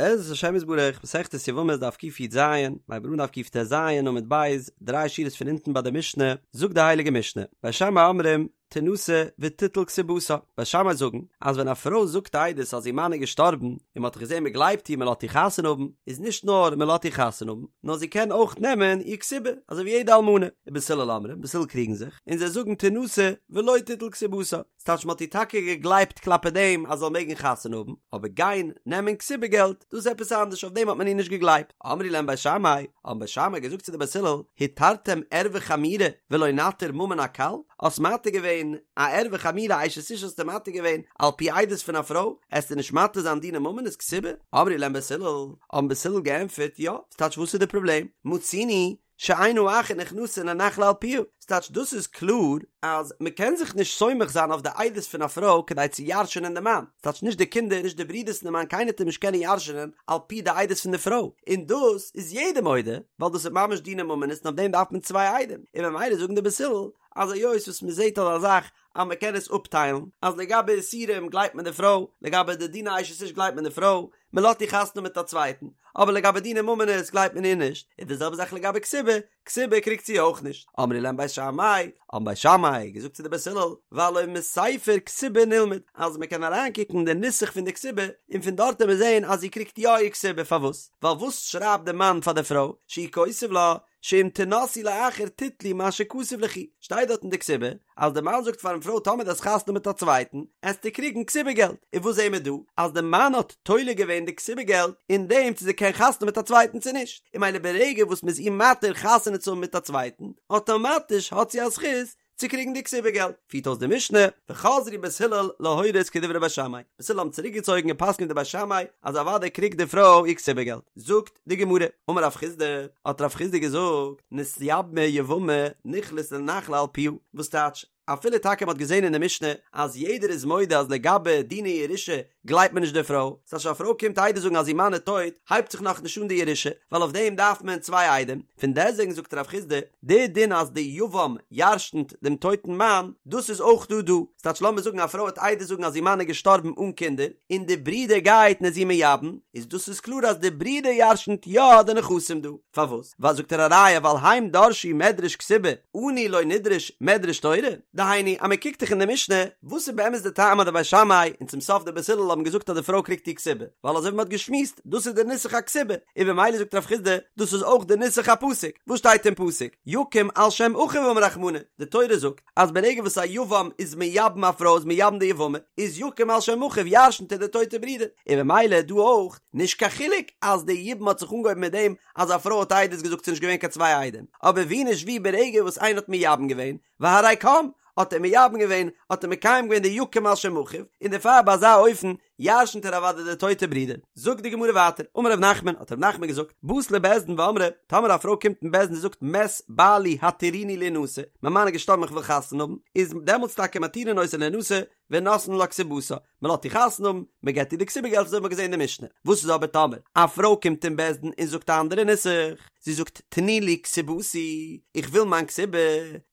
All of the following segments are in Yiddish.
בעזרת השם יתברך, מסכת יבמות דף קי"ז, מ'הייבט אן דף קט"ז עמוד ב', דריי שורות פון אונטן ביי די משנה, זאגט די הייליגע משנה, בית שמאי אומרים, תנשא ותיטול כתובתה, בית שמאי זאגן, אז ווען א פרוי זאגט עדות אז איר מאן איז געשטארבן, און מען האט געזען מען גלייבט איר מען לאזט איר חתונה האבן, איז נישט נאר מען לאזט איר חתונה האבן, נאר זי קען אויך נעמען איר כתובה, אזוי ווי יעדע אלמנה, ובית הלל אומרים, בית הלל קריגן זיך, און זיי זאגן תנשא ולא תיטול כתובתה. ס'טייטש מ'האט איר טאקע געגלייבט כלפי דעם אז זי זאל מעגן חתונה האבן, אבער גיין נעמען כתובה געלט, דאס איז עפעס אנדערש, אויף דעם האט מען איר נישט געגלייבט. אמרו להם בית שמאי, האבן בית שמאי געזאגט צו די בית הלל, התרתם ערווה חמורה ולא נתיר ממון הקל? האסט מתיר געווען א ערווה חמורה אשת איש האסטו מתיר געווען על פי עדות פון א פרוי, עסטו נישט מתיר זיין דיני ממונות כתובה? אמרו להם בית הלל, האבן בית הלל געענטפערט, יא, ס'טייטש וואס איז די פראבלעם? מצינו שאין האחין נכנסין לנחלה על פיה, ס'טייטש דאס איז קלאר אז מ'קען זיך נישט סומך זיין אויף די עדות פון א פרוי כדי צו ירש'ענען די מאן, ס'טייטש נישט די קינדער נישט די ברידערס פון די מאן קיינער טאר נישט קענען ירש'ענען על פי די עדות פון די פרוי, און דאס איז יעדער מודה ווייל דאס איז ממש דיני ממונות און אויף דעם דארף מען צוויי עדים, און ממילא זאגן די בית הלל אז היות וואס מ'זעט אזא זאך אז מ'קען עס אפטיילן אז לגבי איסורים גלייבט מען די פרוי, לגבי די דיני אשת איש גלייבט מען די פרוי, מען לאזט איר חתונה מיט א צווייטן, אבער לגבי דיני ממונות גלייבט מען איר נישט, און די זעלבע זאך לגבי כתובה, כתובה קריגט זי אויך נישט. אמרו להם בית שמאי, האבן בית שמאי געזאגט צו די בית הלל, והלא מספר כתובה נלמד, אז מען קען אריינקוקן אין די נוסח פון די כתובה, און פון דארט וועט מען זען אז זי קריגט יא איר כתובה, פארוואס? ווייל וואס שרייבט די מאן פאר די פרוי, שהוא כותב לה, שאם תנשאי לאחר תיטלי מה שכתוב ליכי, שטייט דארט אין די כתובה אז די מאן זאגט פארן פרוי טאמער דו האסט חתונה מיט א צווייטן עסטו קריגן כתובה געלט, און וואס זעהן מיר דא? אז די מאן האט תולה געווען די כתובה געלט אין דעם צו זי קען חתונה מיט א צווייטן צו נישט, און ממילא ברגע וואס מ'איז איר מתיר חתונה צו האבן מיט א צווייטן, אטאמאטיש האט זי א זכות צו קריגן די כתובה געלט, פירט אויס די משנה, וחזרו בית הלל להורות כדברי בית שמאי, בית הלל האבן צוריק געצויגן און פסק'נט ווי בית שמאי אז אוודאי קריגט די פרוי איר כתובה געלט, זאגט די גמרא, אמר רב חסדא, האט רב חסדא געזאגט, נתייבמה יבמה נכנס לנחלה על פיה, וואס טייטש, אפילו טאקע מען האט געזען אין די משנה אז יעדער איז מודה אז לגבי דיני ירושה גלייבט מען נישט די פרוי, ס'טייטש א פרוי קומט עדות זאגן אז איר מאן איז טויט, הייבט זיך נאכנישט אן די ירושה, ווייל אויף דעם דארף מען צוויי עדים, פון דעסטוועגן זאגט רב חסדא, די דין אז די יבם ירש'נט דעם טויטן מאן, דאס איז אויך דא דא, ס'טייטש לאמיר זאגן א פרוי וועט עדות זאגן אז איר מאן איז געשטארבן אן קינדער, און די ברודער גייט און איז איר מייבם, איז דאס איז קלאר אז די ברודער ירש'נט יא די נכסים דא, פארוואס? ווייל זאגט ער א ראיה ווייל הם דרשו מדרש כתובה, אנו לא נדרוש מדרש תורה, דהיינו אז מען קוקט דאך אין די משנה, וואס איז באמת די טעם אז די בית שמאי און צום סוף די בית הלל האבן געזאגט אז די פרוי קריגט איר כתובה, ווייל אזוי ווי מען האט געשמועסט, דאס איז די נוסח הכתובה, און במילא זאגט רב חסדא, דאס איז אויך די נוסח הפסוק, וואס שטייט אין פסוק, יקום על שם אחיו אמר רחמנא, די תורה זאגט, אז ברגע וואס א יבם איז מייבם א פרוי איז מייבם די יבמה, איז יקום על שם אחיו ירשנט ער די טויטע ברודער, און במילא דא אויך, נישט קיין חילוק אז די יבום האט זיך אנגעהויבן מיט דעם אז א פרוי האט עדות געזאגט ס'נישט געווען קיין צוויי עדים, אבער ווי נישט ווי ברגע וואס איינער האט מייבם געווען, והרי קם, האט ער מייבם געווען, האט ער מקיים געווען די יקום על שם אחיו, און דערפאר ביי אזא אופן ירשנט ער אוודאי די טויטע ברודער. זאגט די גמרא ווייטער, אמר ר' נחמן, האט ר' נחמן געזאגט, באת לבית דין ואמרה, טאמער א פרוי קומט אין בית דין און זאגט מת בעלי התירוני להנשא, מיין מאן איז געשטארבן איך וויל חתונה האבן, איז דעמאלטס טאקע מתירין אותה להנשא, ונותנין לה כתובתה, מען לאזט איר חתונה האבן, מען געבט איר די כתובה געלט אזוי האט מען געזען אין די משנה. וואס איז אבער טאמער א פרוי קומט אין בית דין און זאגט א אנדערע נוסח, זי זאגט תנו לי כתובתי, איך וויל מיין כתובה,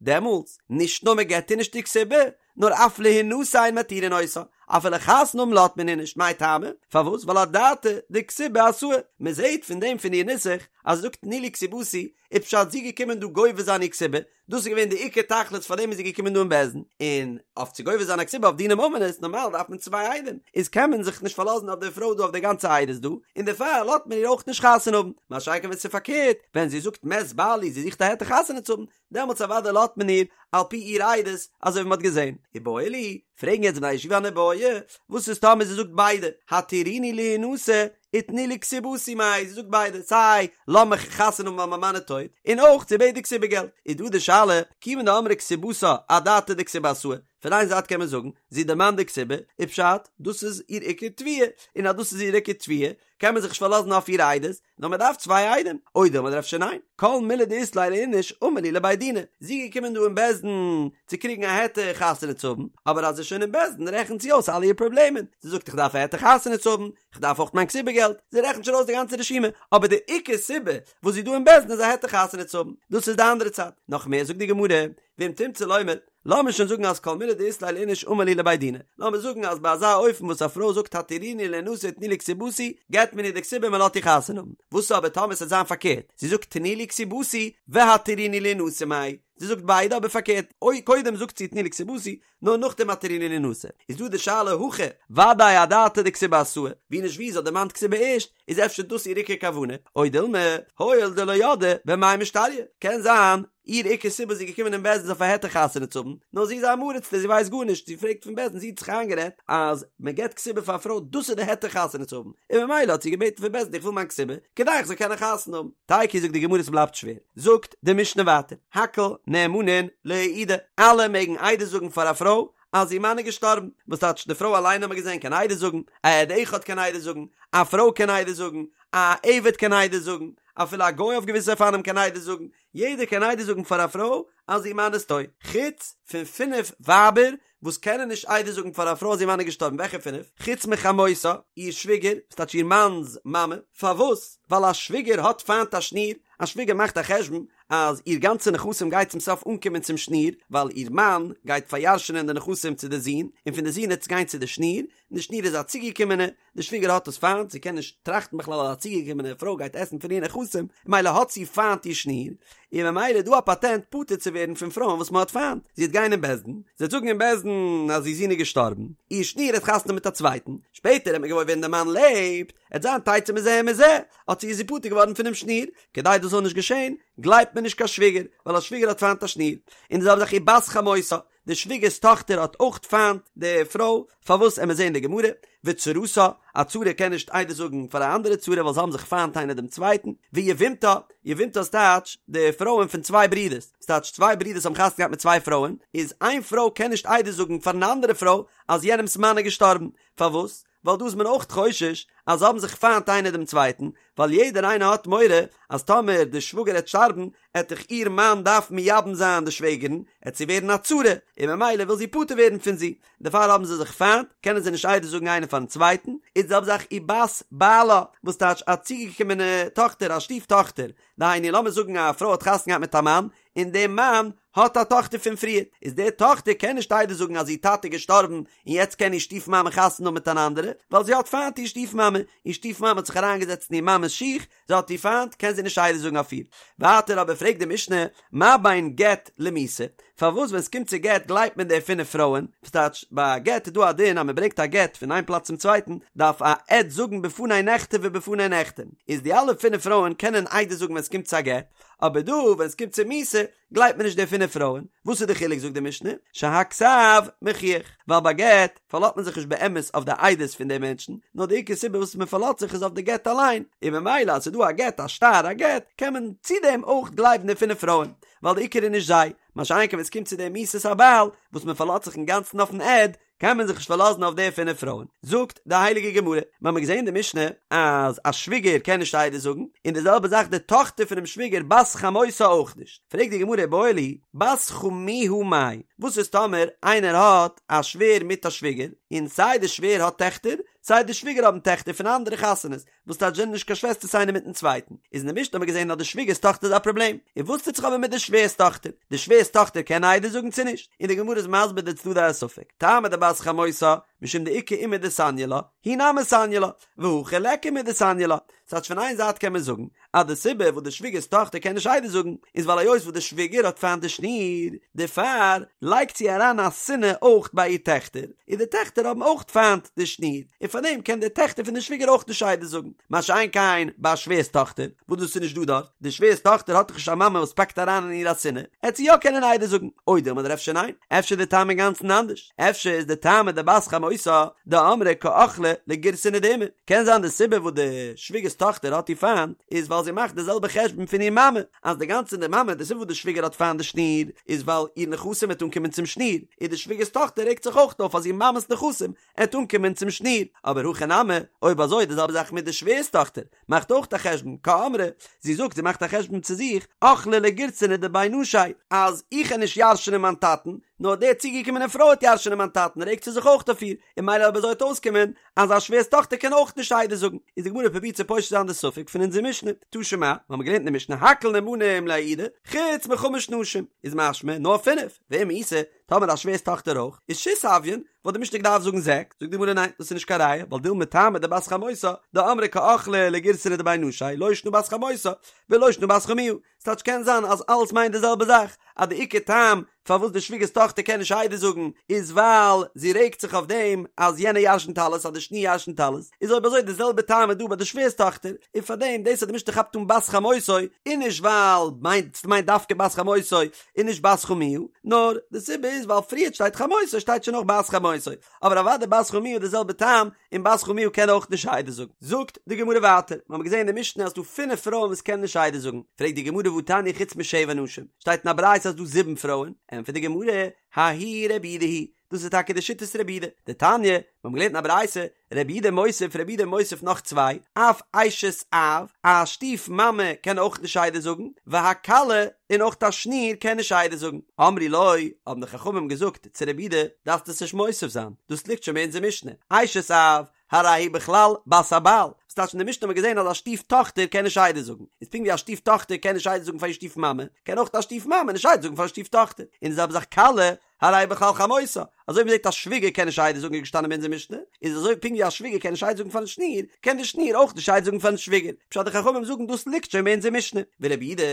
דעמאלטס, נישט נאר מען געבט איר נישט איר כתובה, נאר אף להנשא אין מתירין אותה, אפילו חתונה האבן לאזט מען איר נישט, מאי טעמא? פארוואס? ווייל אדעתא דכתובה אתאי, מען זעט פון דעם פון איר נוסח אז זי זאגט תנו לי כתובתי, איז פשט זי געקומען דא גובה זיין איר כתובה, דאס איז געווען די עיקר תכלית פאר דעם איז זי געקומען דא אין בית דין, און אויף צו גובה זיין א כתובה אויף דיני ממונות נארמאל דארף מען צוויי עדים, איז קען מען זיך נישט פארלאזן אויף די פרוי דא אויף די גאנצע עדות דא, און דערפאר לאזט מען איר אויך נישט חתונה האבן, מה שאין כן ווען ס'איז פארקערט, ווען זי זאגט מת בעלי זי זוכט א היתר חתונה צו האבן, דעמאלטס אוודאי לאזט מען איר על פי איר עדות, אזוי ווי מ'האט געזען. איבעיא להו, פרעגן יעצט בני הישיבה אן איבעיא, וואס איז טאמער זי זאגט ביידע, התירוני להנשא ותנו לי כתובתי מאי, זי זאגט ביידע, סיי לאז מיך חתונה האבן ווייל מיין מאן איז טויט, און אויך זי בעט די כתובה געלט, איז דא די שאלה, כיוון דאמרה כתובתה אדעתא דכתובה אתאי, פון איין זייט קען מען זאגן, זי דערמאנט די כתובה, איז פשט, דאס איז איר עיקר תביעה, און אז דאס איז איר עיקר תביעה, קען מען זיך נישט פארלאזן אויף איר עדות, נאר מען דארף צוויי עדים, או דילמא אדער אפשר ניין, כל מילי דאית ליה לאיניש אמר להו לבי דינא, זי איז געקומען דא אין בית דין צו קריגן א היתר חתונה צו האבן, אבער אז זי איז שוין אין בית דין רעכנט זי אויס אלע איר פראבלעמען, זי זאגט איך דארף א היתר חתונה צו האבן, איך דארף אויך מיין כתובה געלט, זי רעכנט שוין אויס די גאנצע רשימה, אבער די עיקר סיבה וואס זי איז דא אין בית דין איז א היתר חתונה צו האבן, דאס איז די אנדערע צד, נאך מער זאגט די גמרא, ואם תמצא לומר. לאמיר שוין זאגן אז כל מילי דאית ליה לאיניש אמר להו לבי דינא, לאמיר זאגן אז ביי אזא אופן וואס א פרוי זאגט התירוני לינשא ותנו לי כתובתי, געט מען איר די כתובה און מען לאזט איר חתונה האבן. וואס אבער טאמער ס'וועט זיין פארקערט, זי זאגט תנו לי כתובתי והתירוני לינשא מאי, זי זאגט ביידע אבער פארקערט, אוי קודם זאגט זי תנו לי כתובתי, נאר נאכדעם התירוני לינשא, איז דא די שאלה הכא, ודאי אדעתא דכתובה אתאי, ווי נישט ווי זי האט דערמאנט כתובה ערשט, איז אפשר דאס איר עיקר כוונה, או דילמא, הואיל דלא ידעה במאי משתריא, קען זיין איר עיקר סיבה זי איז געקומען אין בית דין איז אויף א היתר חתונה צו האבן, נאר זי איז אן עם הארצ'טע זי ווייסט גארנישט, זי פרעגט פון בית דין זי האט זיך איינגערעדט אז מען געבט כתובה פאר א פרוי דאס איז די היתר חתונה צו האבן, און ממילא האט זי געבעטן פון בית דין איך וויל מיין כתובה כדי איך זאל קענען חתונה האבן. תיקו זאגט די גמרא ס'בלייבט שווער, זאגט די משנה ווייטער, הכל נאמנין להעידה, אלע מעגן עדות זאגן פאר א פרוי אז איר מאן איז געשטארבן, וואס טייטש די פרוי אליין האט מען געזען קען עדות זאגן, א עד אחד קען עדות זאגן, א פרוי קען עדות זאגן, א עבד קען עדות זאגן, אפילו א גוי אויף געוויסע אופנים קען עדות זאגן, יעדער קען עדות זאגן פאר א פרוי אז איר מאן איז טויט, חוץ פון פינף ווייבער וואס קענען נישט עדות זאגן פאר א פרוי אז איר מאן איז געשטארבן, וועלכע פינף? חוץ מחמותה, איר שוויגער, וואס טייטש איר מאנ'ס מאמע, פארוואס? ווייל א שוויגער האט פיינט א שניר, א שוויגער מאכט א חשבון אז איר גאנצע נכסים גייט צום סוף אנקומען צום שניר, ווייל איר מאן גייט פאריארשענען די נכסים צו די זון, און פון די זון העט עס גיין צו די שניר, און די שניר איז א צוגעקומענע, די שוויגער האט עס פיינט, זי קען נישט טראכטן בכלל אז א צוגעקומענע פרוי גייט עסן פון איר נכסים, ממילא האט זי פיינט איר שניר, און ממילא איז דא א פאטענט פטור צו ווערן פון פרויען וואס מען האט פיינט, זי וועט גיין אין בית דין, זי וועט זאגן אין בית דין אז איר זון איז געשטארבן, איר שניר האט חתונה מיט א צווייטן, שפעטער וועט מען געוואויר ווערן די מאן לעבט, עט זיין תצא מזה ומזה, האט זי איז זי פטור געווארן פונעם שניר, כדי דאס זאל נישט געשען, גלייבט מען נישט קיין שוויגער, ווייל א שוויגער האט פיינט א שניר, און די זעלבע זאך ובת חמותה, די שוויגער'ס טאכטער האט אויך פיינט די פרוי, פארוואס עמיר זעהן די גמרא, וצרתה, א צרה קען נישט עדות זאגן פאר א אנדערע צרה ווייל זיי האבן זיך פיינט איינער דעם צווייטן, ויבמתה, יבמתה איז טייטש די פרויען פון צוויי ברידערס, ס'טייטש צוויי ברידערס האבן חתונה געהאט מיט צוויי פרויען, איז איין פרוי קען נישט עדות זאגן פאר אן אנדערע פרוי אז יענעמ'ס מאן איז געשטארבן, פארוואס? ווייל דא איז מען אויך חושש אז זיי האבן זיך פיינט איינער דעם צווייטן, ווייל יעדער איינער האט מורא אז טאמער די שוואגער העט שטארבן עט דאך איר מאן דארפן מייבם זיין די שוועגערן, עט זי ווערן א צרה, און ממילא וויל זי פטור ווערן פון זי, דערפאר האבן זיי זיך פיינט, קענען זיי נישט עדות זאגן איינער פארן צווייטן, איז די זעלבע זאך ובת בעלה, וואס טייטש א צוגעקומענע טאכטער, א שטיף טאכטער, דהיינו לאמיר זאגן א פרוי האט חתונה געהאט מיט א מאן, און דער מאן האט א טאכטער פון פריער, איז די טאכטער קען נישט עדות זאגן אז איר טאטע איז געשטארבן און יעצט קען איר שטיף מאמע חתונה האבן מיט אן אנדערע, ווייל זי האט פיינט איר שטיף מאמע, איר שטיף מאמע האט זיך אריינגעזעצט אין איר מאמע'ס שיך, זי האט איר פיינט, קען זי נישט עדות זאגן אויף איר. ווייטער אבער פרעגט די משנה, מה בין גט למיתה, פארוואס ווען עס קומט צו גט גלייבט מען די פינף פרויען, וואס טייטש ביי א גט איז דא א דין אז מען ברענגט א גט פון איין פלאץ צום צווייטן, דארף א עד זאגן בפני נכתב ובפני נחתם, איז די אלע פינף פרויען קענען עדות זאגן ווען עס קומט צו א גט, אבער דא ווען עס קומט צו מיתה גלייבט מען נישט די פינף פרויען, וואס איז די חילוק זאגט די משנה, שהכתב מוכיח, ווייל ביי גט פארלאזט מען זיך נישט באמת אויף די עדות פון די מענטשן, נאר די עיקר סיבה וואס מען פארלאזט זיך איז אויף די גט אליין, און ממילא אז ס'איז דא א גט א שטר א גט, קען מען צו דעם אויך גלייבן די פינף פרויען, ווייל די עיקר איז נישט זיי, מה שאין כן ווען עס קומט צו די מיתת הבעל, וואס מען פארלאזט זיך אינגאנצן אויפן עד, קען מען זיך נישט פארלאזן אויף די פינף פרויען. זאגט די הייליגע גמרא, מיר האבן געזען אין די משנה אז א שוויגער קען נישט עדות זאגן, און די זעלבע זאך די טאכטער פונעם שוויגער בת חמותה אויך נישט. פרעגט די גמרא איבעיא להו, בת חמיה מאי, וואס איז טאמער איינער האט א שווער מיט א שוויגער, און סיי די שווער האט טעכטער, סיי די שוויגער האבן טעכטער פון אנדערע חתונות, וואס טייטש זענען נישט קיין שוועסטערס איינער מיטן צווייטן, איז אין די משנה האט מען געזען אז די שוויגערס טאכטער איז א פראבלעם, און וואס טוט זיך אבער מיט די שווערס טאכטער? די שווערס טאכטער קען עדות זאגן צו נישט? און די גמרא איז מסביר די צדדי הספק, טעמא דבת חמותה, משום דאיכא אימא דסניא לה, היא נמי סניא לה, והכא ליכא אימא דסניא לה, ס'טייטש פון איין זייט קען מען זאגן אז די סיבה וואס די שוויגערס טאכטער קען נישט עדות זאגן איז ווייל היות וואס די שוויגער האט פיינט די שניר, דערפאר לייגט זי אריין א שנאה אויך ביי איר טעכטער, און די טעכטער האבן אויך פיינט די שניר, און פארדעם קען די טעכטער פון די שוויגער אויך נישט עדות זאגן, מה שאין כן ביי א שווער'ס טאכטער, וואס דאס איז נישט דא דארט, די שווער'ס טאכטער האט דאך נישט א מאמע וואס פאקט אריין אין איר א שנאה, עט זי יא קענען עדות זאגן, או דילמא אדער אפשר ניין, אפשר איז די טעם אינגאנצן אנדערש, אפשר איז די טעמא דבת חמותה דאמרה קא אכלה לגירסנא דאימא, קען זיין די סיבה וואס די שוויגער'ס טאכטער האט איר פיינט איז ווייל זי מאכט די זעלבע חשבון פון איר מאמע, אז די גאנצע די מאמע די סיבה וואס די שוויגער האט פיינט די שניר איז ווייל איר נכסים וועט אנקומען צום שניר, און די שוויגער'ס טאכטער רעגט זיך אויך אויף אז איר מאמע'ס נכסים עט אנקומען צום שניר, אבער הכא נמי, אויב אזוי די זעלבע זאך מיט די שווער'ס טאכטער, מאכט אויך א חשבון, קאמרה, זי זאגט זי מאכט א חשבון צו זיך, אכלה לגירסנא דבי נשי, אז איך על נישט ירש'נען מיין טאטן, נאר די צוגעקומענע פרוי עט ירש'נען מיין טאטן רעגט זי זיך אויך אויף איר, און ממילא אויב אזוי עט אויסקומען אז א שווער'ס טאכטער קען אויך נישט עדות זאגן, איז די גמרא פרובירט צו פושט זיין די ספק פון אונזער משנה, תא שמע, מיר האבן געלערנט אין די משנה הכל נאמנים להעידה, חוץ מחמש נשים, איז משמע נאר פינף, ואם איתא. טאמער א שווער'ס טאכטער אויך, איז שית הויין, וואלט די משנה געדארפט זאגן זעקס, זאגט די גמרא ניין, דאס איז נישט קיין ראיה, ווייל דילמא טעמא דבת חמותה, דאמרה קא אכלה לגירסנא דבי נשי, לא שנא בת חמותה, ולא שנא בת חמיה, ס'טייטש קען זיין אז אלעס מיינט די זעלבע זאך, אז די עיקר טעם פארוואס די שוויגער'ס טאכטער קען נישט עדות זאגן איז ווייל זי רעגט זיך אויף דעם אז יענער ירשנט אלעס אז די שניר ירשנט אלעס, איז אויב אזוי די זעלבע טעם איז דא ביי די שווער'ס טאכטער, און פארדעם דאס אז די משנה כאפט אן בת חמותו איז נישט ווייל מיינט ס'מיינט דווקא בת חמותו און נישט בת חמיה, נאר די סיבה איז ווייל פריערט שטייט חמותו שטייט שוין אויך בת חמותו, אבער אוודאי בת חמיה איז די זעלבע טעם, און בת חמיה קען אויך נישט עדות זאגן. זאגט די גמרא ווייטער, מיר האבן געזען אין די משנה אז ס'דא פינף פרויען וואס קענען נישט עדות זאגן, פרעגט די גמרא והתניא חוץ משבע נשים, שטייט אין א ברייתא אז ס'דא זיבן פרויען, ענטפערט די גמרא, ההיא רבי יהודה היא, דאס איז טאקע די שיטת רבי יהודה, דתניא, מיר האבן געלערנט אין א ברייתא, רבי יהודה מוסיף, רבי יהודה מוסיף נאך צוויי, אף אשת אב, א שטיף מאמע קען אויך נישט עדות זאגן, והכלה, און אויך א שניר קען נישט עדות זאגן. אמרו לו, האבן די חכמים געזאגט צו רבי יהודה, דארפסט עס נישט מוסיף זיין, דאס ליגט שוין ביי אונזער משנה, אשת אב, הרי היא בכלל בת הבעל, וואס טייטש אין די משנה האט מען געזען אז א שטיף טאכטער קען נישט עדות זאגן, איז פונקט ווי א שטיף טאכטער קען נישט עדות זאגן פאר איר שטיף מאמע, קען אויך א שטיף מאמע נישט עדות זאגן פאר א שטיף טאכטער, און די זעלבע זאך כלה, הרי היא בכלל חמותה, אזוי ווי מ'זעט א שוויגער קען נישט עדות זאגן איז געשטאנען ביי אונזער משנה, איז אזוי פונקט ווי א שוויגער קען נישט עדות זאגן פארן שניר, קען די שניר אויך נישט עדות זאגן פארן שוויגער, פשט די חכמים זאגן דאס ליגט שוין ביי אונזער משנה, ורבי יהודה,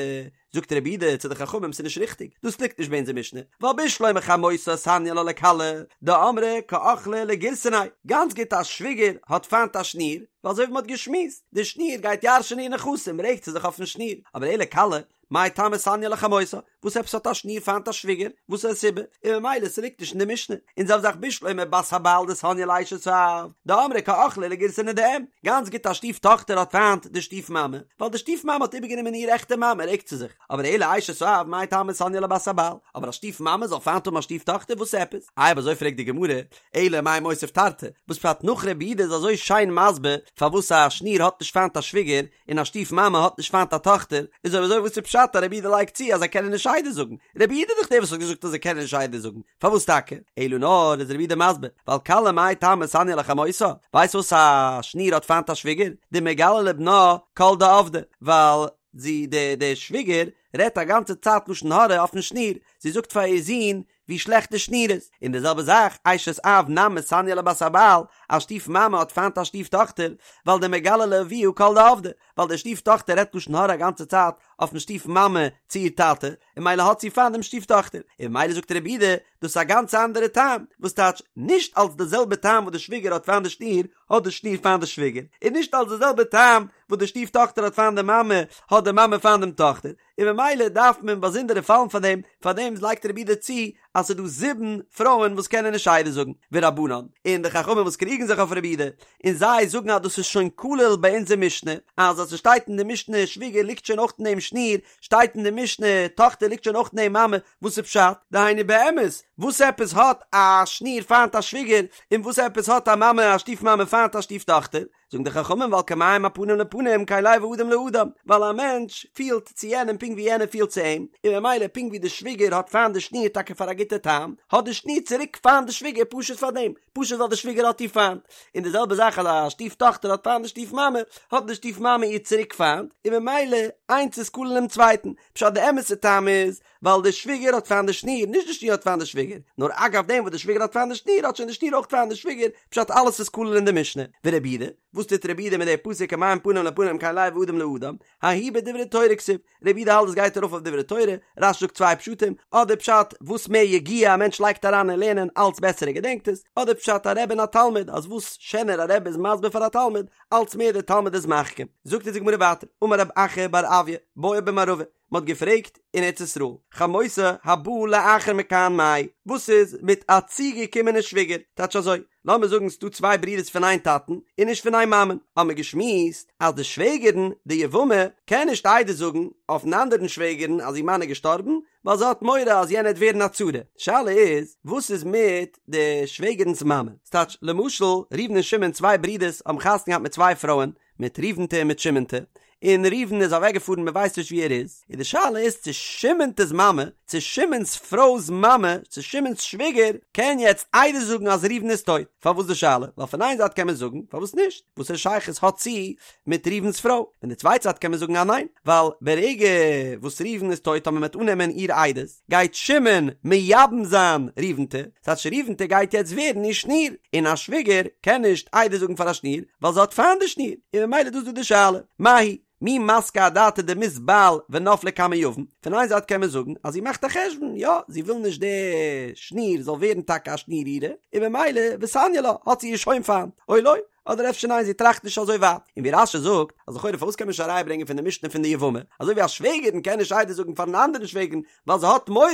זאגט רבי יהודה צו די חכמים ס'איז נישט ריכטיג, דאס ליגט נישט ביי אונזער משנה, ווייל בשלמא חמותה סניא לה לכלה, דאמרה קאכלה לגירסנאי, גאנץ גוט א שוויגער האט פיינט א שניר, ווייל אזוי ווי מ'האט געשמועסט, די שניר גייט ירש'ענען איר נכסים רעגט זי זיך אויפן שניר, אבער אלא כלה, מאי טעמא סניא לחמותה, וואס עפעס האט א שניר פיינט א שוויגער? וואס איז די סיבה? און ממילא ס'ליגט נישט אין די משנה. און זעלבע זאך בשלמא בת הבעל דסניא לאשת האב, דאמרה קאכלה לגירסנא דאם, גאנץ גוט א שטיף טאכטער האט פיינט די שטיף מאמע, ווייל די שטיף מאמע האט איבערגענומען איר עכטע מאמע רעגט זי זיך, אבער אלא אשת האב מאי טעמא סניא לבת הבעל, אבער א שטיף מאמע זאל פיינט האבן א שטיף טאכטער וואס עפעס? איי אויב אזוי פרעגט די גמרא, אלא מאי מוסיף תרתי, וואס פשט נאך רבי יהודה איז אזוי שיין מסביר פארוואס א שניר האט נישט פיינט א שוויגער, און א שטיף מאמע האט נישט פיינט א טאכטער, איז אויב אזוי וואס איז פשט אז רבי יהודה לייגט צו אז זיי קענען נישט עדות זאגן? רבי יהודה איז דאך דער וואס האט געזאגט אז זיי קענען נישט עדות זאגן, פארוואס טאקע? אלא נאר איז רבי יהודה מסביר, ווייל כלה מאי טעמא סניא לחמותה, ווייסט וואס א שניר האט פיינט א שוויגער? דמגלה לבנה כל דעבדה, ווייל זי די די שוויגער רעדט א גאנצע צייט לשון הרע אויפן שניר, זי זאגט פאר איר זון ווי שלעכט די שניר איז, און די זעלבע זאך אשת אב נמי סניא לבת הבעל, א שטיף מאמע האט פיינט א שטיף טאכטער, ווייל דמגלה לאביה כל דעבדה, ווייל די שטיף טאכטער רעדט לשון הרע א גאנצע צייט אויפן שטיף מאמע צו איר טאטע, און ממילא האט זי פיינט דעם שטיף טאכטער, און ממילא זאגט רבי יהודה, דאס איז א גאנץ אנדערע טעם, וואס טייטש, נישט אלס די זעלבע טעם וואס די שוויגער האט פיינט די שניר, האט די שניר פיינט די שוויגער, און נישט אלס די זעלבע טעם וואס די שטיף טאכטער האט פיינט די מאמע, האט די מאמע פיינט דעם טאכטער, און ממילא דארף מען באזונדערע פאלן פאר דעם, פאר דעם לייגט רבי יהודה צו אז ס'איז דא זיבן פרויען וואס קענען נישט עדות זאגן, ורבנן, און די חכמים וואס קריגן זיך אויף רבי יהודה, און זיי זאגן אז דאס איז שוין כלול ביי אונזער משנה, אז אז ס'שטייט אין די משנה שוויגער ליגט שוין אויך אין דעם שניר, שטייט אין די משנה טאכטער ליגט שוין אויך אין דעם מאמע, וואס איז פשט? דהיינו באמת, וואס עפעס האט א שניר פיינט א שוויגער, און וואס עפעס האט א מאמע א שטיף מאמע פיינט א שטיף טאכטער? זאגן די חכמים ווייל כמים הפנים לפנים כן לב האדם לאדם, ווייל א מענטש פילט צו יענעם פונקט ווי יענער פילט צו אים, און ממילא פונקט ווי די שוויגער האט פיינט די שניר טאקע פאר א גוטע טעם, האט די שניר צוריק פיינט די שוויגער פשוט פאר דעם, פשוט ווייל די שוויגער האט איר פיינט. און די זעלבע זאך אז א שטיף טאכטער האט פיינט די שטיף מאמע, האט די שטיף מאמע איר צוריק פיינט, און ממילא איינס איז כולל דעם צווייטן. פשט די אמת'ע טעם איז, ווייל די שוויגער האט פיינט די שניר, נישט די שניר האט פיינט די שוויגער, נאר אגב דעם וואס די שוויגער האט פיינט די שניר האט שוין די שניר אויך פיינט די שוויגער, פשט אלעס איז כולל אין די משנה. ורבי יהודה, וואס טוט רבי יהודה מיט די פסוק כמים פנים לפנים כן לב האדם לאדם, ההוא בדברי תורה כתיב, רבי יהודה האלט עס גייט ארויף אויף דברי תורה, רש"י זאגט צוויי פשטים, אדער פשט וואס מער יגיעה א מענטש לייגט אריין אין לערנען אלץ בעסער ער געדענקט עס, אדער פשט א רבי און א תלמיד אז וואס שענער א רבי איז מסביר פאר א תלמיד אלץ מער דער תלמיד איז מחכים. זאגט אונז די גמרא ווייטער, אמר רב אחא בר אויא, בעו במערבא, מען האט געפרעגט אין ארץ ישראל, חמותה הבאה לאחר מכאן מאי, וואס איז מיט א צוגעקומענע שוויגער? טייטש אזוי, לאמיר זאגן ס'דא צוויי ברידערס פון איין טאטן און נישט פון איין מאמען, האבן מיר געשמועסט אז די שוועגערן, די יבמה, קען נישט עדות זאגן אויפן אנדערן שוועגערן אז איר מאן איז געשטארבן, ווייל זי האט מורא אז יענער וועט ווערן א צרה. שאלה איז, וואס איז מיט די שוועגערנס מאמע? ס'טייטש, למשל, ראובן און שמעון צוויי ברידערס האבן חתונה געהאט מיט צוויי פרויען, מיט ראובנ'טע און מיט שמעונ'טע, און ראובן איז אוועקגעפארן מען ווייסט נישט וואו ער איז, און די שאלה איז צו שמעון'טעס מאמע, צו שמעון'ס פרוי'ס מאמע, צו שמעון'ס שוויגער, קען יעצט עדות זאגן אז ראובן איז טויט. פארוואס די שאלה? ווייל פון איין זייט קען מען זאגן, פארוואס נישט? וואסערע שייכות האט זי מיט ראובן'ס פרוי? פון די צווייטע זייט קען מען זאגן אז ניין, ווייל ברגע וואס ראובן איז טויט אויב מען וועט אננעמען איר עדות, גייט שמעון מייבם זיין ראובן'טע, ס'טייטש ראובן'טע גייט יעצט ווערן איר שניר, און א שוויגער קען נישט עדות זאגן פאר א שניר, ווייל זי האט פיינט די שניר, און ממילא דאס איז דא די שאלה, מאי היא? מי מסקא אדעתא דמית בעל ונפלה קמי יבם, פון איין זייט קען מען זאגן אז זי מאכט א חשבון, יא, זי וויל נישט די שניר זאל ווערן טאקע א שניר אירע, און ממילא וסניא לה, האט זי איר שוין פיינט, או לא, אדער אפשר ניין זי טראכט נישט אזוי ווייט, און ווי רש"י זאגט, אז לכאורה פארוואס קען מען נישט א ראיה ברענגען פון די משנה פון די יבמה, אזוי ווי א שוועגערין קען נישט עדות זאגן פארן אנדערן שוועגערין ווייל זי האט מורא,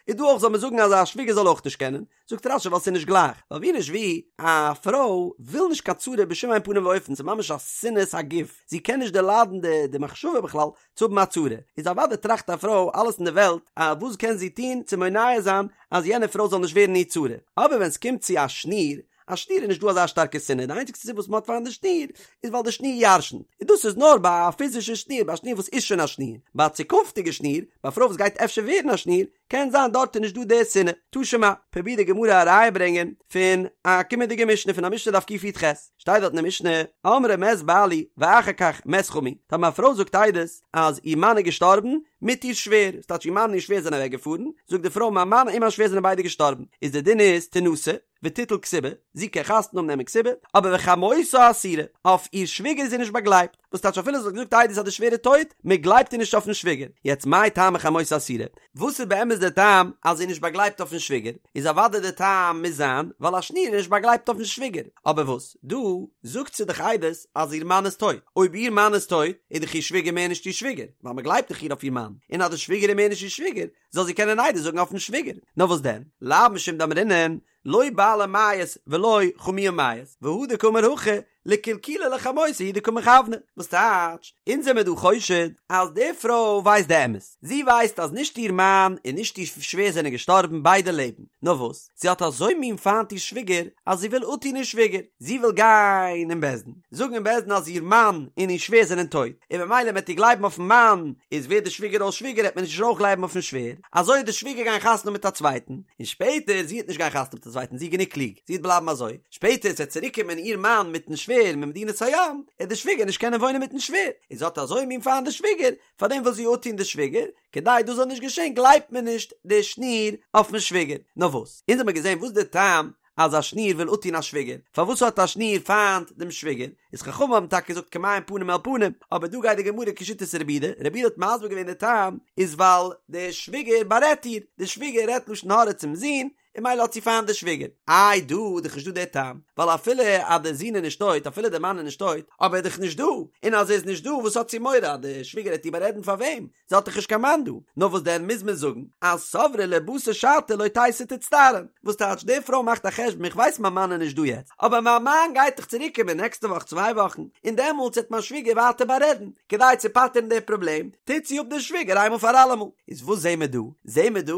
איז דא אויך זאל מען זאגן אז א שוויגער זאל אויך נישט קענען, זאגט רש"י ווייל ס'איז נישט גלייך, ווייל ווי נישט ווי, א פרוי וויל נישט קיין צרה בשום אין פנים ואופן, ס'איז ממש א שנאת הגוף, זי קען נישט דערליידן די די מחשבה בכלל צו האבן א צרה, איז אוודאי טראכט א פרוי אלעס אין די וועלט אז וואס קען זי טון צו מונע זיין אז יענע פרוי זאל נישט ווערן איר צרה, אבער ווען ס'קומט צו א שניר, א שניר איז נישט דא אזא שטארקע שנאה, די איינציגסטע סיבה וואס מ'האט פיינט די שניר איז ווייל די שניר ירשנ'ט, און דאס איז נאר ביי א פיזישע שניר, ביי א שניר וואס איז שוין א שניר, ביי א צוקונפטיגע שניר, ביי א פרוי וואס גייט אפשר ווערן א שניר, קען זיין דארט איז נישט דא די שנאה. תא שמע, פרובירט די גמרא א ראיה ברענגען פון א קומענדיגע משנה פון א משנה דף קי"ח, שטייט דארט אין די משנה, אמרה מת בעלי ואחר כך מת חמי, טאמער א פרוי זאגט עדות אז איר מאן איז געשטארבן מיט איר שווער, ס'טייטש איר מאן און איר שווער זענען אוועק געפארן, זאגט די פרוי מיין מאן און מיין שווער זענען ביידע געשטארבן, איז די דין איז תנשא, ותיטול כתובה, זי קען חתונה האבן נעמען כתובה, אבער וחמותה אסורה, אויף איר שוויגער איז זי נישט באגלייבט, וואס טייטש אפילו זי האט געזאגט עדות אז די שווער איז טויט, מען גלייבט איר נישט אויפן שוויגער, יעצט מאי טעמא חמותה אסורה, וואס איז באמת דער טעם אז זי איז נישט באגלייבט אויפן שוויגער, איז אוודאי דער טעם מוז זיין ווייל א שניר איז נישט באגלייבט אויפן שוויגער, אבער וואס דא זאגט זי דאך עדות אז איר מאן איז טויט, אויב איר מאן איז טויט איז דאך איר שוויגער מער נישט איר שוויגער, ווייל מען גלייבט דאך איר אויף איר מאן, און אז די שוויגער איז מער נישט איר שוויגער, זאל זי קענען עדות זאגן אויפן שוויגער, נאר וואס דען, לאו משום דאמרינן, לא בעלה מיית ולא חמיה מיית, והא דקאמר הכי, לקלקולא לחמותה הוא דקא מכוונא, וואס טייטש, אונז זעמיר דא חושד אז די פרוי ווייסט די אמת, זי ווייסט אז נישט איר מאן און נישט איר שווער זענען געשטארבן, ביידע לעבן, נאר וואס, זי האט אזוי מין פיינט איר שוויגער, אז זי וויל אפטון איר שוויגער, זי וויל גיין אין בית דין, זאגן אין בית דין אז איר מאן און איר שווער זענען טויט, און במילא מ'עט איר גלייבן אויפן מאן, איז ווערט די שוויגער אויס שוויגער העט מען נישט אויך גלייבן אויפן שווער, אזוי העט די שוויגער גיין חתונה מיט א צווייטן, און שפעטער זי העט נישט גיין חתונה מיט א צווייטן זי איז גענוג קלוג, זי העט בלייבן אזוי, שפעטער ס'עט צוריק קומען איר מאן מיטן שווער ממדינת הים, העט די שוויגער נישט קענען וואוינען מיטן שווער, און זי האט אזוי מין פיינט די שוויגער, פארדעם וויל זי אפטון די שוויגער, כדי דאס זאל נישט געשען גלייבט מען נישט די שניר אויפן שוויגער, נאר וואס? אונז האמיר געזען וואס די טעם אז א שניר וויל אפטון א שוויגער, פארוואס האט א שניר פיינט דעם שוויגער? איז חכמים האבן טאקע געזאגט כמים פנים אל פנים, אבער דא גייט די גמרא כשיטת רבי יהודה, רבי יהודה האט מסביר געווען די טעם איז ווייל די שוויגער בארעדט איר, די שוויגער רעדט לשון הרע צום זון, און ממילא האט זי פיינט די שוויגער. איי דא איז דאך נישט דא די טעם, ווייל אפילו אז די זון איז נישט טויט, אפילו די מאן איז נישט טויט, אבער ער איז דאך נישט דא, און אז ער איז נישט דא וואס האט זי מורא אז די שוויגער העט איר בארעדן פאר וועם? זי האט דאך נישט קיין מאן דא. נאר וואס דען מוז מען זאגן אז סברה לבתר שעתא לא תיתי תצטערן. וואס טייטש די פרוי מאכט א חשבון איך ווייס מיין מאן איז נישט דא יעצט, אבער מיין מאן גייט דאך צוריק קומען נעקסטע וואך צוויי וואכן, און דעמאלטס העט מיין שוויגער ווייטער בארעדן, כדי צו פטר'ן די פראבלעם, טוט זי אפ די שוויגער איינמאל פאר אלעמאל. איז וואס זעהן מיר דא? זעהן מיר דא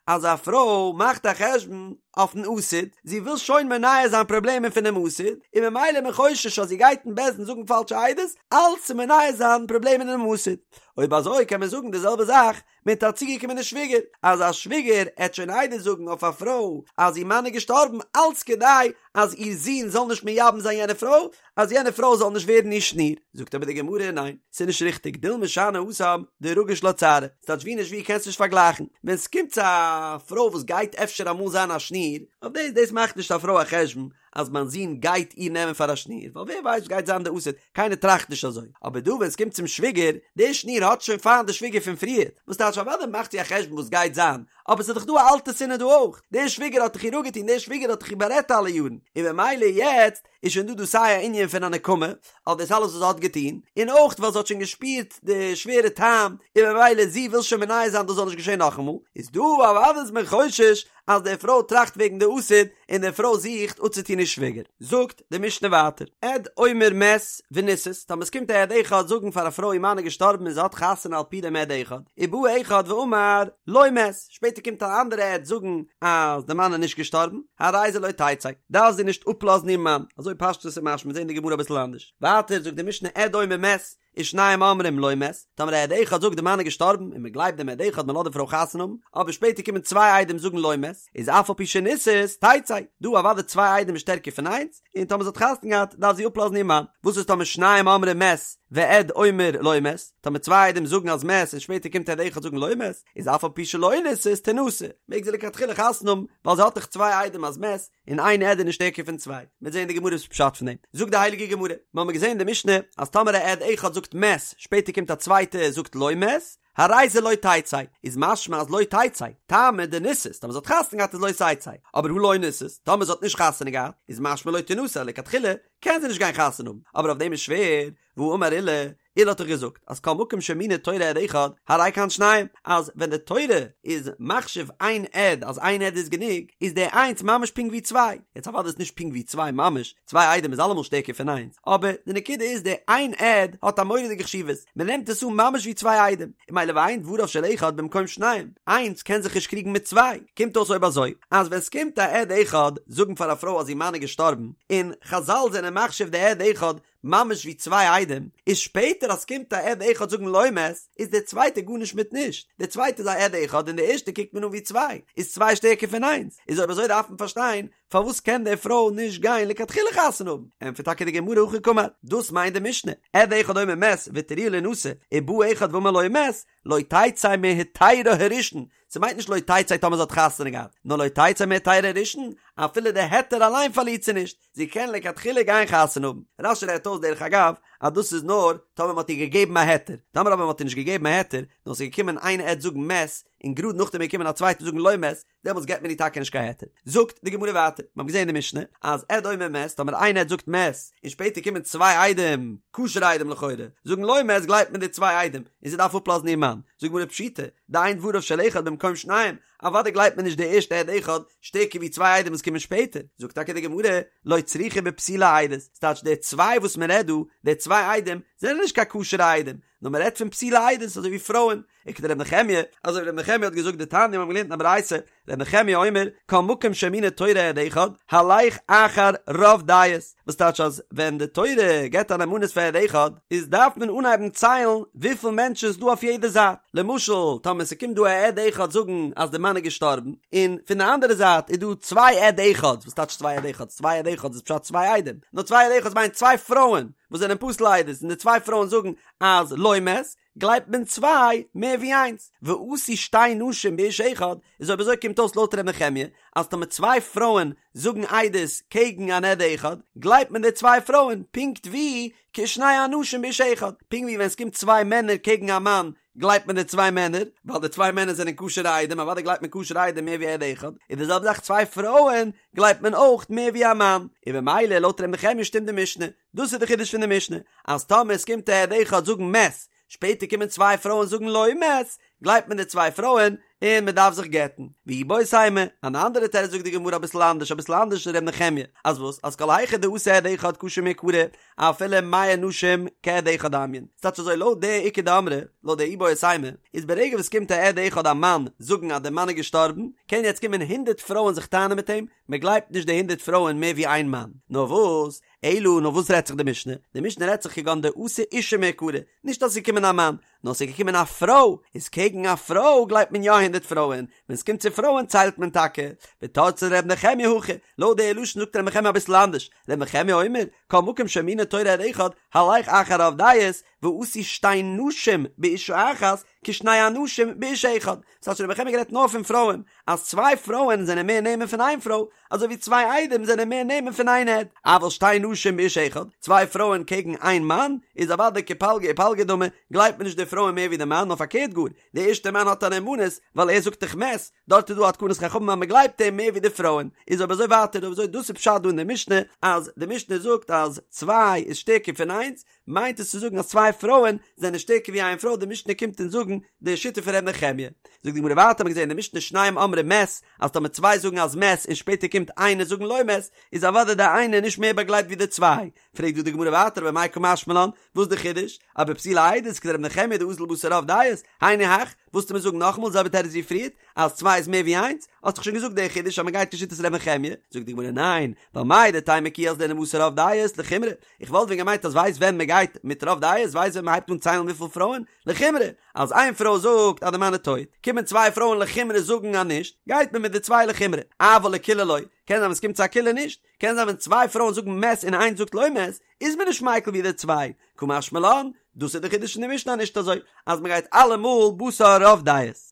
אז א פרוי מאכט א חשבון אויפן עתיד, זי וויל שוין מונע זיין פראבלעמען פונעם עתיד, און ממילא איז מען חושש אז זי גייט אין בית דין זאגן פאלשע עדות, אלץ צו מונע זיין פראבלעמען אינעם עתיד. אויב אזוי קען מען זאגן די זעלבע זאך מיט א צוגעקומענע שוויגער, אז א שוויגער עט שוין עדות זאגן אויף א פרוי אז איר מאן איז געשטארבן אלץ כדי אז איר זון זאל נישט מייבם זיין יענע פרוי, אז יענע פרוי זאל נישט ווערן איר שניר. זאגט אבער די גמרא ניין, ס'איז נישט ריכטיג, דילמא שאני התם דרגיש לה צערא, ס'טייטש ווי נישט ווי קענסט נישט פארגלייכן, ווען ס'קומט צו א פרוי וואס גייט אפשר אמאל זיין א שניר, אויף דאס דאס מאכט נישט א פרוי א חשבון אז מיין זון גייט איר נעמען פאר א שניר, ווייל ווער ווייסט וואס גייט זיין די עתיד, קיינער טראכט נישט אזוי, אבער דא ווען ס'קומט צום שוויגער, די שניר האט שוין פיינט די שוויגער פון פריער, וואס טייטש אוודאי מאכט זי א חשבון וואס גייט זיין, אבער ס'איז דאך דא א אלטע שנאה דא אויך, די שוויגער האט דאך איר אפגעטון, די שוויגער האט דאך איר בארעדט אלע יארן, און במילא יעצט איז שוין דא דא סיי א ענין פון א נקמה אויף דאס אלעס וואס זי האט געטון, און אויך ווייל זי האט שוין געשפירט די שווערע טעם, און במילא זי וויל שוין מונע זיין דאס זאל נישט געשען נאכאמאל, איז דא אוודאי איז מען חושש אז די פרוי טראכט וועגן די עתיד, און די פרוי זוכט אפצוטון איר שוויגער. זאגט די משנה ווייטער, עד אומר מת ונישאת, טאמער עס קומט א עד אחד זאגן פאר א פרוי איר מאן איז געשטארבן און זי האט חתונה על פי דעם עד אחד, ובא אחד ואמר לא מת, שפעטער קומט א אנדערע עד זאגן אז די מאן איז נישט געשטארבן, הרי זה לא תצא, דארף זי נישט אפלאזן איר מאן, אזוי פשטות איז משמע, מיר זעהן די גמרא אביסל אנדערש. ווייטער זאגט די משנה עד אומר מת, ושנים אומרים לא מת, טאמער א עד אחד זאגט די מאן איז געשטארבן און מען גלייבט דעם עד אחד מען לאזט די פרוי חתונה האבן, אבער שפעטער קומען צוויי עדים זאגן לא מת, איז אף על פי שנישאת תצא, דא אוודאי צוויי עדים איז שטערקער פון איינס, און טאמער זי האט חתונה געהאט דארף זי אפלאזן איר מאן, וואס איז טאמער שניים אומרים מת ועד אומר לא מת, טאמער צוויי עדים זאגן אז מת און שפעטער קומט עד אחד זאגן לא מת, איז אף על פי שלא נישאת תנשא, מעג זי לכתחילה חתונה האבן, ווייל זי האט דאך צוויי עדים אז מת, און איין עד איז נישט שטערקער פון צוויי. מ'וועט זען אין די גמרא וואס פשט פון דעם. זאגט די הייליגע גמרא, מ'האמיר געזען אין די משנה אז טאמער א עד אחד זאגט מת, שפעטער קומט א צווייטע זאגט לא מת, הרי זה לא תצא, איז משמע אז לא תצא, טעמא דנישאת, טאמער זי האט חתונה געהאט איז לא תצא, אבער הא לא נישאת, טאמער זי האט נישט חתונה געהאט, איז משמע לא תנשא, לכתחילה קען זי נישט גיין חתונה האבן, אבער אויף דעם איז שווער, והאמר עולא, עולא האט דאך געזאגט אז כל מקום שהאמינה תורה עד אחד, הרי כאן שניים, אז ווען די תורה איז מחשיב איין עד אז איין עד איז גענוג, איז די איינס ממש פונקט ווי צוויי, יעצט אוודאי איז נישט פונקט ווי צוויי ממש, צוויי עדים איז אלעמאל שטערקער פון איינס, אבער די נקודה איז די איין עד האט א מורא'דיגע חשיבות, מען נעמט עס אן ממש ווי צוויי עדים, און ממילא ואין דבריו של אחד במקום שניים, איינס קען זיך נישט קריגן מיט צוויי, קומט אויס אויב אזוי, אז ווען ס'קומט א עד אחד זאגן פאר א פרוי אז איר מאן איז געשטארבן, און חזל זענען מחשיב די עד אחד ממש ווי צוויי עדים, איז שפעטער אז ס'קומט א עד אחד זאגן לא מת, איז דער צווייטער גארנישט מיט נישט, דער צווייטער איז א עד אחד און דער ערשטער קוקט מען אן ווי צוויי, איז צוויי שטערקער פון איינס, איז אויב אזוי דארף מען פארשטיין פארוואס קען די פרוי נישט גיין לכתחילה חתונה האבן, ענטפערט טאקע די גמרא הכי קאמר, דאס מיינט די משנה, עד אחד אומר מת והתירוה לינשא, ובא אחד ואמר לא מת, לא תצא מהיתרה הראשון, ס'מיינט נישט לא תצא טאמער זי האט חתונה געהאט, נאר לא תצא מהיתרה הראשון, אפילו די היתר אליין פארלירט זי נישט, זי קען לכתחילה גיין חתונה האבן. רש"י רעדט אויס דרך אגב אז דאס איז נאר טאמער מ'האט איר געגעבן א היתר, טאמער אבער מ'האט איר נישט געגעבן א היתר, נאר ס'איז געקומען איין עד זאגן מת, און גראד נאכדעם איז געקומען א צווייטער זאגן לא מת, דעמאלטס געבט מען איר טאקע נישט קיין היתר. זאגט די גמרא ווייטער, מ'האט געזען אין די משנה אז עד אומר מת, טאמער איין עד זאגט מת, און שפעטער קומען צוויי עדים, כשר'ע עדים לכאורה, זאגן לא מת גלייבט מען די צוויי עדים, און זי דארף אפלאזן איר מאן. זאגט די גמרא פשיטא, דאין דבריו של אחד במקום שניים, אוודאי גלייבט מען נישט די ערשטע עד אחד שטערקער ווי צוויי עדים וואס קומען שפעטער, זאגט טאקע די גמרא, לא צריכא בפסולי עדות, ס'טייטש די צוויי וואס מען רעדט דא, די צוויי עדים, זענען נישט קיין כשר'ע עדים, נאר מען רעדט פון פסולי עדות אזוי ווי פרויען, וכדר' נחמיה, אזוי ווי ר' נחמיה האט געזאגט דתניא מיר האבן געלערנט אין א ברייתא, ר' נחמיה אומר, כל מקום שהאמינה תורה עד אחד, הלך אחר רוב דעות, וואס טייטש אז ווען די תורה געבט א נאמנות פאר עד אחד, איז דארף מען אנהייבן ציילן וויפיל מענטשן איז דא אויף יעדע זייט, למשל טאמער ס'קומט דא א עד אחד זאגן אז די מאן איז געשטארבן, און פון די אנדערע זייט איז דא צוויי עד אחד'ס, וואס טייטש צוויי עד אחד'ס? צוויי עד אחד'ס איז פשט צוויי עדים, נאר צוויי עד אחד'ס מיינט צוויי פרויען וואס זענען פסול לעדות, און די צוויי פרויען זאגן אז לא מת, גלייבט מען צוויי מער ווי איינס, ואתו שתי נשים באיש אחד, איז אויב אזוי קומט אויס לויט ר' נחמיה אז טאמער צוויי פרויען זאגן עדות קעגן אן עד אחד, גלייבט מען די צוויי פרויען פונקט ווי כשני אנשים באיש אחד, פונקט ווי ווען עס קומט צוויי מענער קעגן א מאן גלייבט מען די צוויי מענער, ווייל די צוויי מענער זענען כשר'ע עדים, אוודאי גלייבט מען כשר'ע עדים מער ווי עד אחד, איז די זעלבע זאך צוויי פרויען גלייבט מען אויך מער ווי א מאן, און במילא לויט ר' נחמיה שטימט די משנה. דאס איז די חידוש פון די משנה, אז טאמער עס קומט א עד אחד זאגן מת, שפעטער קומען צוויי פרויען זאגן לא מת, גלייבט מען די צוויי פרויען און מען דארף זיך גט'ן. ואיבעית אימא, אן אנדערע תירוץ זאגט די גמרא אביסל אנדערש, אביסל אנדערש פון ר' נחמיה, אז וואס? אז כל היכא דאתא עד אחד כשר מעיקרא, אפילו מאה נשים כעד אחד דמיין. ס'טייטש אזוי לויט די איכא דאמרי, לויט די איבעית אימא, איז ברגע וואס קומט א עד אחד א מאן זאגן אז דער מאן איז געשטארבן, קען יעצט קומען הונדערט פרויען זיך טענה'ן מיט אים, מען גלייבט נישט די הונדערט פרויען מער ווי איין מאן. נאר וואס? אלא נאר וואס רעדט זיך די משנה? די משנה רעדט זיך כגון דאתא אשה מעיקרא, נישט אז ס'איז געקומען א מאן, נאר ס'איז געקומען א פרוי, איז קעגן א פרוי גלייבט מען יא הונדערט פרויען, ווען ס'קומט צו פרויען ציילט מען טאקע. ותרצה ר' נחמיה הכי, לויט די לשון זאגט ר' נחמיה אביסל אנדערש, ר' נחמיה אומר, כל מקום שהאמינה תורה עד אחד, הלך אחר רוב דעות, ואתו שתי נשים באשה אחת, כשני אנשים באיש אחד. ס'הייסט ר' נחמיה גערעדט נאר פון פרויען, אז צוויי פרויען זענען מער נאמן פון איין פרוי, אזוי ווי צוויי עדים זענען מער נאמן פון איין עד. אבל שתי נשים באיש אחד, צוויי פרויען קעגן איין מאן, איז אוודאי כפלגא ופלגא דמי, גלייבט מען נישט די פרויען מער ווי די מאן, נאר פארקערט גאר, די ערשטע מאן האט א נאמנות, ווייל ער זאגט דאך מת, דארט איז דא א תקנת חכמים אז מען גלייבט אים מער ווי די פרויען. איז אויב אזוי ווייטער, אויב אזוי דאס איז פשט דא אין די משנה, אז די משנה זאגט אז צוויי איז שטערקער פון איינס, מיינט עס צו זאגן אז צוויי פרויען זענען שטערקער ווי איין פרוי, די משנה קומט אונז זאגן די שיטה פון ר' נחמיה. זאגט די גמרא ווייטער, האט מען געזען אין די משנה שניים אומרים מת, אז טאמער צוויי זאגן אז מת און שפעטער קומט איינער זאגן לא מת, איז אוודאי די איינער נישט מער באגלייבט ווי די צוויי. פרעגט דא די גמרא ווייטער במאי קא משמע לן, וואס איז די חידוש? אבפסולי עדות כדר' נחמיה דאזיל בתר רוב דעות, היינו הך, וואלסטו מיר זאגן נאכאמאל די זעלבע תירוץ ווי פריערט, אז צוויי איז מער ווי איינס, האסט דאך שוין געזאגט די חידוש אז מען גייט כשיטת ר' נחמיה, זאגט די גמרא ניין, ווייל מהו דתימא כי אזלינן בתר רוב דעות לחומרא, איך וואלט ווען געמיינט אז ווייסט ווען מען גייט מיט רוב דעות, ווייסט ווען מען הייבט אן ציילן וויפיל פרויען, לחומרא, אז איין פרוי זאגט אז די מאן איז טויט, קומען צוויי פרויען לחומרא זאגן אז נישט, גייט מען מיט די צוויי לחומרא, אבל לקולא לא, קען זיין ווען ס'קומט צו א קולא נישט, קען זיין ווען צוויי פרויען זאגן מת און איינס זאגט לא מת, איז מען נישט מיקל ווי די צוויי, קא משמע לן, דאס איז די חידוש אין די משנה נישט אזוי אז מען גייט אלעמאל בתר רוב דעות.